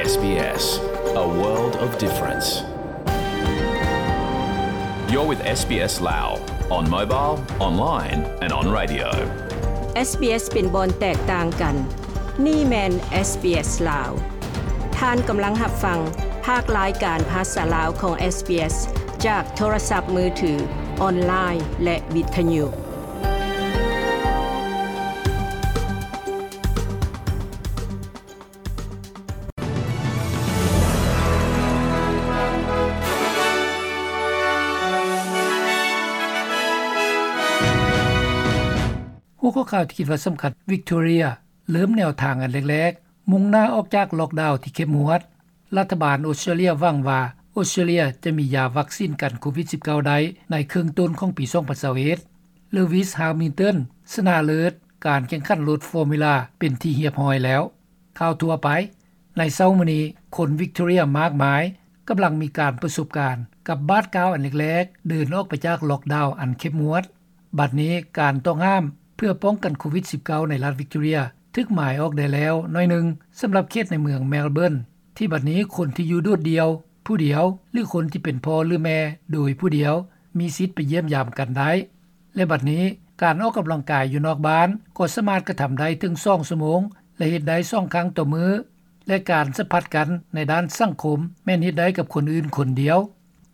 SBS, a world of difference. You're with SBS Lao on mobile, online and on radio. SBS ເປັນບ່ອນແຕກຕ່າງກັນ. ນີ້ແມ່ນ SBS ລາວ. ທ່ານກຳລັງຮັບຟັງພາກລາຍການພາສາລາວຂອງ SBS ຈາກໂທລະສັບມືຖື, ອອນລາຍ ແລະ ວິທະຍຸ. ຫົວຂໍ້ຂ່າວທີ່ຄິດວ່າສຳຄັນ, ວິກຕໍເຣຍເລີ່ມແນວທາງອັນແລກໆ, ມຸ່ງໜ້າອອກຈາກລັອກດາວທີ່ເຂັ້ມງວດ. ລັດຖະບານອົດສະຕຣາເລຍຫວັງວ່າ ອົດສະຕຣາເລຍຈະມີຢາວັກຊີນກັນໂຄວິດສິບເກົ້າໄດ້ໃນເຄິ່ງຕົ້ນຂອງປີສອງພັນຊາວເອັດ. ເລວິສ ຮາວມິນຕັນ ຊະນະເລີດການແຂ່ງຂັນລົດຟໍມູລາເປັນທີ່ຮຽບຮ້ອຍແລ້ວ. ຂ່າວທົ່ວໄປ. ໃນເຊົ້າມື້ນີ້, ຄົນວິກຕໍເຣຍມາກມາຍກຳລັງມີການປະສົບການກັບບາດກ້າວອັນແລກໆ ເດີນອອກໄປຈາກລັອກດາວອັນເຂັ້ມງວດ. ບັດນີ້ການຕ້ອງຫ້າມເພື່ອປ້ອງກັນໂຄວິດສິບເກົ້າໃນລັດວິກຕໍເຣຍຖືກໝາຍອອກໄດ້ແລ້ວໜ້ອຍໜຶ່ງ ສຳລັບເຂດໃນເມືອງແມລເບີນ ທີ່ບັດນີ້ຄົນທີ່ຢູ່ໂດດດ່ຽວຜູ້ດຽວ ຫຼື ຄົນທີ່ເປັນພໍ່ ຫຼື ແມ່ໂດຍຜູ້ດຽວ ມີສິດໄປຢ້ຽມຢາມກັນໄດ້ ແລະ ບັດນີ້ການອອກກຳລັງກາຍຢູ່ນອກບ້ານກໍສາມາດກະທຳໄດ້ເຖິງສອງຊົ່ວໂມງ ແລະ ເຮັດໄດ້ສອງຄັ້ງຕໍ່ມື້ ແລະ ການສຳຜັດກັນໃນດ້ານສັງຄົມແມ່ນເຮັດໄດ້ກັບຄົນອື່ນຄົນດຽວ.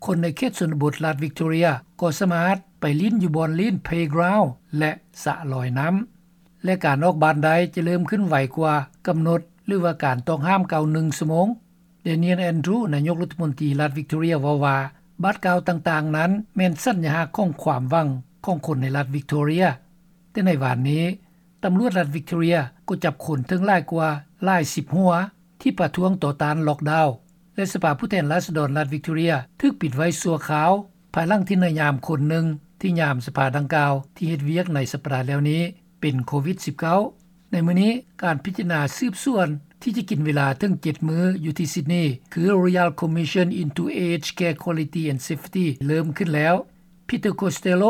ຄົນໃນເຂດຊົນນະບົດລັດວິກຕໍເຣຍກໍສາມາດໄປຫຼິ້ນຢູ່ບ່ອນຫຼິ້ນ ເພລກຣາວ ແລະ ສະລອຍນ້ຳ ແລະ ການອອກບ້ານໄດ້ຈະເລີ່ມຂຶ້ນໄວກວ່າກຳນົດ ຫຼືວ່າການຕ້ອງຫ້າມເກົ່າໜຶ່ງຊົ່ວໂມງ. ແດນຽນ ແອນດຣູ ນາຍົກລັດຖະມົນຕີລັດວິກຕໍເຣຍເວົ້າວ່າ ບາດກ້າວຕ່າງໆນັ້ນແມ່ນສັນຍະລັກຂອງຄວາມຫວັງຂອງຄົນໃນລັດວິກຕໍເຣຍ. ແຕ່ໃນວານນີ້ ຕຳຫຼວດລັດວິກຕໍເຣຍກໍຈັບຄົນເຖິງຫຼາຍກວ່າຫຼາຍສິບຫົວ ທີ່ປະທ້ວງຕໍ່ຕ້ານລັອກດາວ ແລະ ສະພາຜູ້ແທນລາຊະດອນລັດວິກຕໍເຣຍຖືກປິດໄວ້ຊົ່ວຄາວ ພາຍຫຼັງທີ່ນາຍຍາມຄົນໜຶ່ງທີ່ຍາມສະພາດັ່ງກ່າວທີ່ເຮັດວຽກໃນສັບປະດາແລ້ວນີ້ເປັນໂຄວິດສິບເກົ້າ. ໃນມື້ນີ້ ການພິຈາລະນາສືບສວນທີ່ຈະກິນເວລາເຖິງເຈັດມື້ຢູ່ທີ່ຊິດນີ ຄື Royal Commission into Aged Care Quality and Safety ເລີ່ມຂຶ້ນແລ້ວ. ພີເຕີ ໂຄສເຕໂລ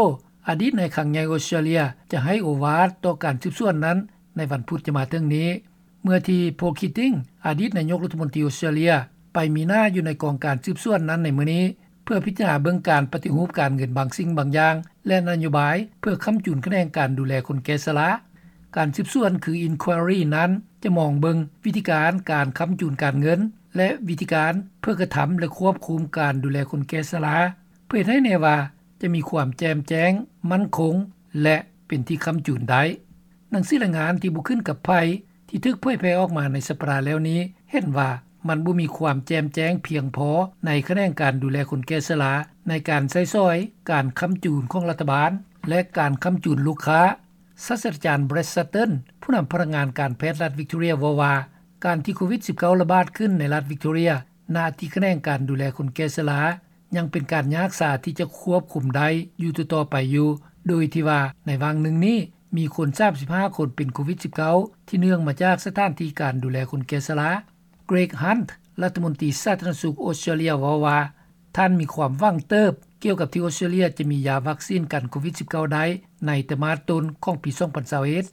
ອະດີດນາຍຄັງໃຫຍ່ອົດສະຕຣາເລຍ ຈະໃຫ້ໂອວາດຕໍ່ການສືບສວນນັ້ນໃນວັນພຸດຈະມາເຖິງນີ້ ເມື່ອທີ່ ໂພຄິດຕິງ ອະດີດນາຍົກລັດຖະມົນຕີອົດສະຕຣາເລຍ ໄປມີໜ້າຢູ່ໃນກອງການສືບສວນນັ້ນໃນມື້ນີ້ ເພື່ອພິຈາລະນາເບິ່ງການປະຕິຮູບການເງິນບາງສິ່ງບາງຢ່າງ ແລະ ນະໂຍບາຍເພື່ອຄ້ຳຈູນຂະແໜງການດູແລຄົນແກ່ຊະລາ. ການສືບສວນ ຄື Inquiry ນັ້ນ ຈະມອງເບິ່ງວິທີການການຄ້ຳຈູນການເງິນ ແລະ ວິທີການເພື່ອກະທຳ ແລະ ຄວບຄຸມການດູແລຄົນແກ່ຊະລາ ເພື່ອເຮັດໃຫ້ແນ່ວ່າຈະມີຄວາມແຈ່ມແຈ້ງ, ໝັ້ນຄົງ ແລະ ເປັນທີ່ຄ້ຳຈູນໄດ້. ໜັງສືລາຍງານທີ່ບໍ່ຂຶ້ນກັບໃຜ ທີ່ຖືກເຜີຍແຜ່ອອກມາໃນສັບປະດາແລ້ວນີ້ ເຫັນວ່າມັນບໍ່ມີຄວາມແຈ່ມແຈ້ງພຽງພໍໃນຂະແໜງການດູແລຄົນແກ່ຊະລາ ໃນການໃຊ້ສອຍການຄ້ຳຈູນຂອງລັດຖະບານ ແລະ ການຄ້ຳຈູນລູກຄ້າ. ສາດສະດາຈານ Brad Sutton ຜູ້ນຳພະນັກງານການແພດລັດວິກຕໍເຣຍເວົ້າວ່າ ການທີ່ໂຄວິດສິບເກົ້າລະບາດຂຶ້ນໃນລັດວິກຕໍເຣຍ ນະທີ່ຂະແໜງການດູແລຄົນແກ່ຊະລາ ຍັງເປັນການຍາກສາທີ່ຈະຄວບຄຸມໄດ້ຢູ່ຕໍ່ໆໄປຢູ່ ໂດຍທີ່ວ່າໃນຫວ່າງໜຶ່ງນີ້ ມີຄົນສາມສິບຫ້າຄົນເປັນໂຄວິດສິບເກົ້າ ທີ່ເນື່ອງມາຈາກສະຖານທີ່ການດູແລຄົນແກ່ຊະລາ. Greg Hunt ລັດຖະມົນຕີສາທາລະນະສຸກອົດສະຕຣາເລຍເວົ້າວ່າ ທ່ານມີຄວາມຫວັງເຕີບກ່ຽວກັບທີ່ອົດສະຕຣາເລຍຈະມີຢາວັກຊີນກັນໂຄວິດສິບເກົ້າໄດ້ໃນໄຕມາດຕົ້ນຂອງປີສອງພັນຊາວເອັດ.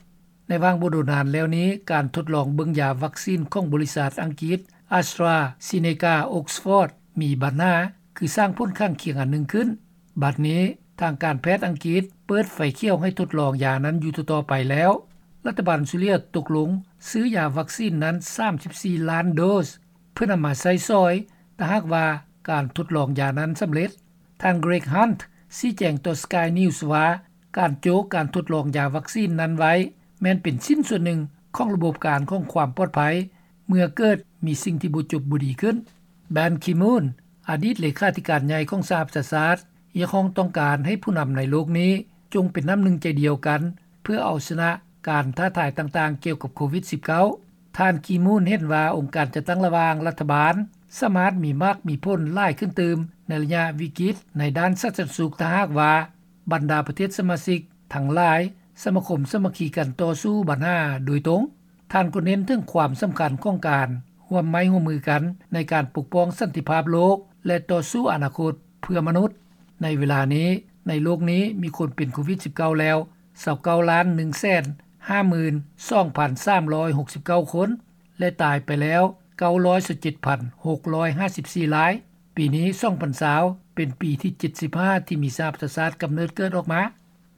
ໃນຫວ່າງບໍ່ດົນນານແລ້ວນີ້ ການທົດລອງເບິ່ງຢາວັກຊີນຂອງບໍລິສັດອັງກິດ AstraZeneca Oxford ມີບັນຫາ ຄືສ້າງຜົນຂ້າງຄຽງອັນໜຶ່ງຂຶ້ນ. ບັດນີ້ ທາງການແພດອັງກິດເປີດໄຟຂຽວໃຫ້ທົດລອງຢານັ້ນຢູ່ຕໍ່ໆໄປແລ້ວ. ລັດຖະບານອົດສະຕຣາເລຍຕົກລົງຊື້ຢາວັກຊີນນັ້ນສາມສິບສີ່ລ້ານໂດສ ເພື່ອນຳມາໃຊ້ສອຍ ຖ້າຫາກວ່າການທົດລອງຢານັ້ນສຳເລັດ. ທ່ານ Greg Hunt ຊີ້ແຈງຕໍ່ Sky News ວ່າ ການໂຈະການທົດລອງຢາວັກຊີນນັ້ນໄວ້ແມ່ນເປັນຊິ້ນສ່ວນໜຶ່ງຂອງລະບົບການຂອງຄວາມປອດໄພ ເມື່ອເກີດມີສິ່ງທີ່ບໍ່ຈົບບໍ່ດີຂຶ້ນ. Ban Ki-moon ອະດີດເລຂາທິການໃຫຍ່ຂອງສະຫະປະຊາຊາດ ຮຽກຮ້ອງຕ້ອງການໃຫ້ຜູ້ນຳໃນໂລກນີ້ຈົ່ງເປັນນ້ຳໜຶ່ງໃຈດຽວກັນ ເພື່ອເອົາຊະນະການທ້າທາຍຕ່າງໆກ່ຽວກັບໂຄວິດສິບເກົ້າ. ທ່ານ Ki-moon ເຫັນວ່າອົງການຈັດຕັ້ງລະຫວ່າງລັດຖະບານ ສາມາດມີໝາກມີຜົນຫຼາຍຂຶ້ນຕື່ມໃນໄລຍະວິກິດໃນດ້ານສາທາລະນະສຸກ ຖ້າຫາກວ່າບັນດາປະເທດສະມາຊິກທັງຫຼາຍສະມາຄົມສາມັກຄີກັນຕໍ່ສູ້ບັນຫາໂດຍຕົງ. ທ່ານກໍເນັ້ນເຖິງຄວາມສຳຄັນຂອງການຮ່ວມໄມ້ຮ່ວມມືກັນໃນການປົກປ້ອງສັນຕິພາບໂລກ ແລະ ຕໍ່ສູ້ອະນາຄົດເພື່ອມະນຸດ. ໃນເວລານີ້ ໃນໂລກນີ້ມີຄົນເປັນໂຄວິດສິບເກົ້າແລ້ວຊາວເກົ້າລ້ານໜຶ່ງແສນຫ້າໝື່ນສອງພັນສາມຮ້ອຍຫົກສິບເກົ້າຄົນ ແລະ ຕາຍໄປແລ້ວ ເກົ້າຮ້ອຍຊາວເຈັດພັນຫົກຮ້ອຍຫ້າສິບສີ່ລາຍ. ປີນີ້ ສອງພັນຊາວ ເປັນປີທີ ເຈັດສິບຫ້າ ທີ່ມີສະຫະປະຊາຊາດກຳເນີດເກີດອອກມາ.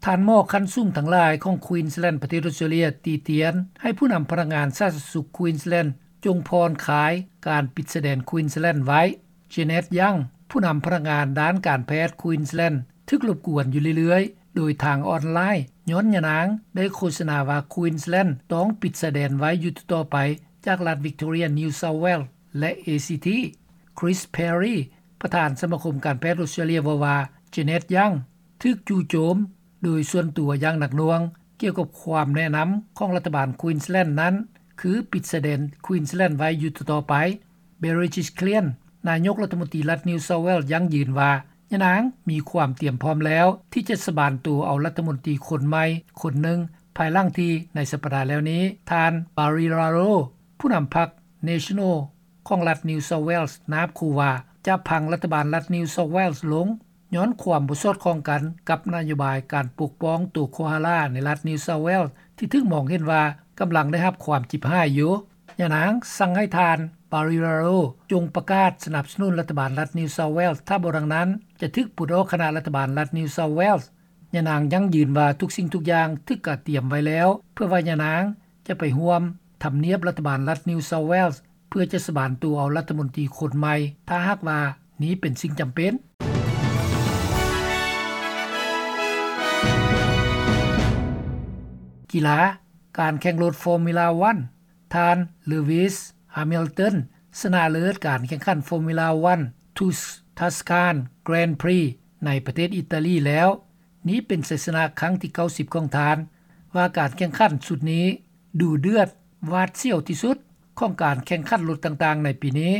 ທ່ານໝໍຂັ້ນສູງທັງຫຼາຍຂອງ Queensland ປະເທດອອສເຕຣເລັຽ ຕີຕຽນໃຫ້ຜູ້ນຳພະນັກງານສາທາລະນະສຸກ Queensland ຈົ່ງຜ່ອນຄາຍການປິດຊາຍແດນ Queensland ໄວ້. Janet Young ຜູ້ນຳພະນັກງານດ້ານການແພດ Queensland ຖືກລົບກວນຢູ່ເລື້ອຍໆ ໂດຍທາງອອນລາຍ ຍ້ອນຍານາງໄດ້ໂຄສະນາວ່າ Queensland ຕ້ອງປິດຊາຍແດນໄວ້ຢູ່ຕໍ່ໆໄປຈາກລັດ Victoria New South Wales ແລະ ACT. Chris Perry ປະທານສະມາຄົມການແພດອອສເຕຣເລັຽ ເວົ້າວ່າ Janet Young ຖືກຈູ່ໂຈມໂດຍສ່ວນຕົວຢ່າງໜັກໜ່ວງກ່ຽວກັບຄວາມແນະນຳຂອງລັດຖະບານ Queensland ນັ້ນ ຄືປິດຊາຍແດນ Queensland ໄວ້ຢູ່ຕໍ່ໆໄປ. Berejiklian ນາຍົກລັດຖະມົນຕີລັດ New South Wales ຢັ້ງຢືນວ່າ ຍານາງມີຄວາມຕຽມພ້ອມແລ້ວທີ່ຈະສະບານໂຕເອົາລັດຖະມົນຕີຄົນໃໝ່ຄົນໜຶ່ງ ພາຍຫຼັງທີ່ໃນສັບປະດາແລ້ວນີ້ ທ່ານ Barilaro ຜູ້ນຳພັກ National ຂອງລັດ New South Wales ນາບຂູ່ວ່າຈະພັງລັດຖະບານລັດ New South Wales ລົງ ຍ້ອນຄວາມບໍ່ສອດຄ່ອງກັນກັບນະໂຍບາຍການປົກປ້ອງໂຕໂຄອາລາໃນລັດ New South Wales ທີ່ຖືກມອງເຫັນວ່າກຳລັງໄດ້ຮັບຄວາມຈິບຫາຍຢູ່. ຍານາງສັ່ງໃຫ້ທ່ານ Barilaro ຈົ່ງປະກາດສະໜັບສະໜູນລັດຖະບານລັດ New South Wales ຖ້າບໍ່ດັ່ງນັ້ນ ຈະຖືກປົດອອກຄະນະລັດຖະບານລັດ New South Wales. ຍານາງຢັ້ງຢືນວ່າທຸກສິ່ງທຸກຢ່າງຖືກກະຕຽມໄວ້ແລ້ວ ເພື່ອວ່າຍານາງຈະໄປຮ່ວມທຳນຽບລັດຖະບານລັດ New South Wales ເພື່ອຈະສະບານໂຕເອົາລັດຖະມົນຕີຄົນໃໝ່ ຖ້າຫາກວ່ານີ້ເປັນສິ່ງຈຳເປັນ. ກິລາ, ການແຂ່ງລົດ Formula One ທ່ານ Lewis Hamilton ຊະນະເລີດການແຂ່ງຂັນ Formula One Tus-, Tuscan Grand Prix ໃນປະເທດອີຕາລີແລ້ວ. ນີ້ເປັນໄຊຊະນະຄັ້ງທີ ເກົ້າສິບ ຂອງທ່ານ. ວ່າການແຂ່ງຂັນຊຸດນີ້ດຸເດືອດຫວາດສຽວທີ່ສຸດຂອງການແຂ່ງຂັນລົດຕ່າງໆໃນປີນີ້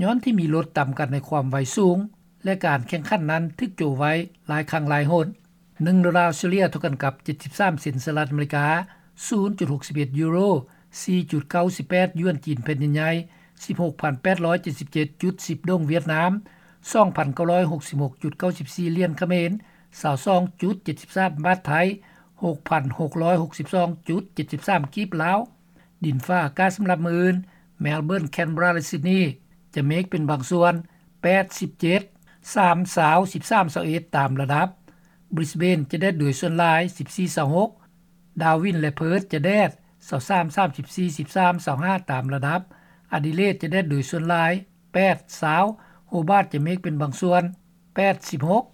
ຍ້ອນທີ່ມີລົດຕຳກັນໃນຄວາມໄວສູງ ແລະ ການແຂ່ງຂັນນັ້ນຖືກໂຈະໄວ້ຫຼາຍຄັ້ງຫຼາຍຫົນ. ໜຶ່ງໂດລາອອສເຕຣເລັຽເທົ່າກັນກັບ ເຈັດສິບສາມ ເຊັນສະຫະລັດອາເມລິກາ, ສູນຈຸດຫົກສິບເອັດຢູໂຣ, ສີ່ຈຸດເກົ້າສິບແປດຢວນຈີນແຜ່ນດິນໃຫຍ່, ສິບຫົກພັນແປດຮ້ອຍເຈັດສິບເຈັດຈຸດສິບດົງຫວຽດນາມ, ສອງພັນເກົ້າຮ້ອຍຫົກສິບຫົກຈຸດເກົ້າສິບສີ່ຫຼຽນຂະເໝນ, ຊາວສອງຈຸດເຈັດສິບສາມບາດໄທ, ຫົກພັນຫົກຮ້ອຍຫົກສິບສອງຈຸດເຈັດສິບສາມກີບລາວ. ດິນຟ້າອາກາດສຳລັບມື້ອື່ນ: ແມລເບີນ, ແຄນເບີຣາ ແລະ ຊິດນີ ຈະເມກເປັນບາງສ່ວນ ແປດສິບເຈັດ, ສາມຊາວ, ສິບສາມຊາວເອັດ ຕາມລະດັບ. ບຣິສເບນ ຈະແດດໂດຍສ່ວນຫຼາຍ ສິບສີ່ຊາວຫົກ, ດາວິນ ແລະ ເພີດ ຈະແດດ ຊາວສາມ ສາມສິບສີ່, ສິບສາມ ຊາວຫ້າ ຕາມລະດັບ. ອາດີເລດ ຈະແດດໂດຍສ່ວນຫຼາຍ ແປດຊາວ, ໂຮບາດ ຈະເມກເປັນບາງສ່ວນ ແປດສິບຫົກ.